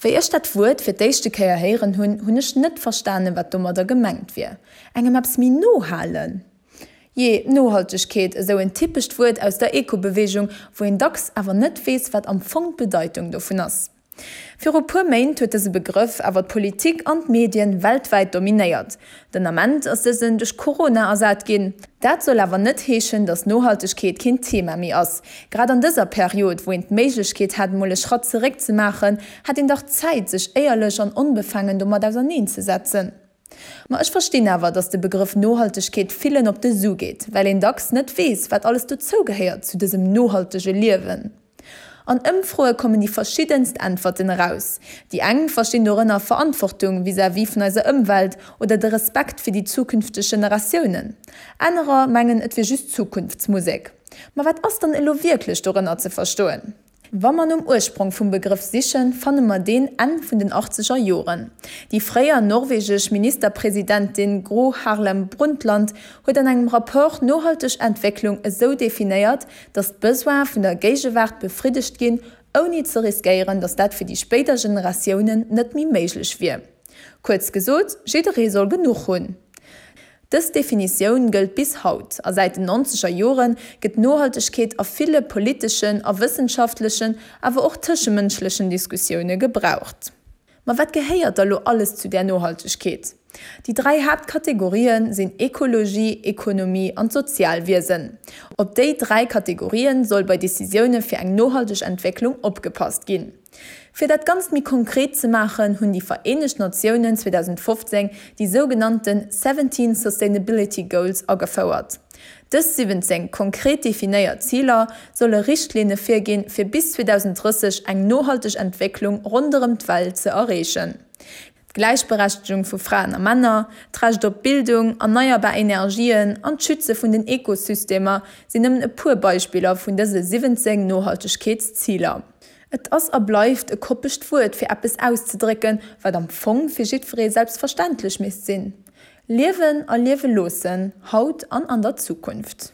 Wéi ech dat Wuert fir d'éischte Kéier héieren hunn, hunn ech net verstanen, wat domadder gemengt wier. Engem eppes méi no halen? Jee, Nohaltegkeet, esou en typescht Wuert aus der Eco-Beweegung, wou een dacks awer net weess, wat am Fong d'Bedeitung dovun ass. Viru puer Méint huet dëse Begrëff awer d'Politik an d'Medien weltwäit dominéiert. Den Ament ass dësen duerch Corona ersat ginn. Dat soll awer net heeschen, datt Nohaltegkeet keen Thema méi ass. Grad an dëser Period, wou een d'Méiglechkeet hätt mol e Schratt zeréck ze maachen, hätt een dach Zäit sech éierlech an onbefaangen domat auserneen ze setzen. Ma ech verstinn awer, datt de Begrëff Nohaltegkeet villen op de Su geet, well een dacks net weess, wat alles dozou gehéiert zu dësem nohaltege Liewen. An Ëmfroe kommen déi verschiddenst Äntwerten eraus. Déi eng verstinn dorënner Verantwortung vis-à-vis vun eiser Ëmwelt oder de Respekt fir déi zukünfteg Generatiounen. Anerer mengen, et wier just Zukunftsmusek. Ma wat ass dann elo wierklech dorënner ze verstoen? Wa mer nom Ursprong vum Begrëff sichen, fanne mer deen Enn vun den achtzeger Joren. Déi fréier norwegesch Ministerpresidentin Gro Harlem Brundtland huet an engem Rapport nohalteg Entwécklung esou definéiert, datt d'Besoine vun der Géigewaart befriddegt ginn, ouni ze riskéieren, datt dat fir déi spéider Generatiounen net méi méiglech wier. Kuerz gesot, jidderee soll genuch hunn. Dës Definitioun gëllt bis haut, a säit den nonzeger Jore gëtt Nohaltegkeet a ville politeschen a wëssenschaftlechen, awer och tëschemënschlechen Diskussioune gebraucht. Ma wat gehéiert da lo alles zu där Nohaltegkeet? Déi 3 Haaptkategorien sinn Ekologie, Ekonomie an d'Sozialwiesen. Op déi 3 Kategorien soll bei Decisioune fir eng nohalteg Entwécklung opgepasst ginn. Fir dat Ganzt méi konkret ze maachen, hunn déi Vereenegt Natiounen 2015 déi sougenannten 17 Sustainability Goals agefouert. Dës 17 konkret definéiert Ziler solle Richtlinne virginn, fir bis 2030 eng nohalteg Entwécklung ronderëm d'Welt ze erreechen. D'Gläichberechtegung vu Fraen a Männer, d'Recht op Bildung, erneierbar Energien an d'Schütze vun den Ekosystemer sinn nëmmen e puer Beispiller vun dëse 17 Nohaltegkeetsziler. Et ass a bleift e koppegt Wuert fir eppes auszedrécken, wat am Fong fir jiddweree selbstverständlech misst sinn. Liewen a liewe loossen, haut an an der Zukunft.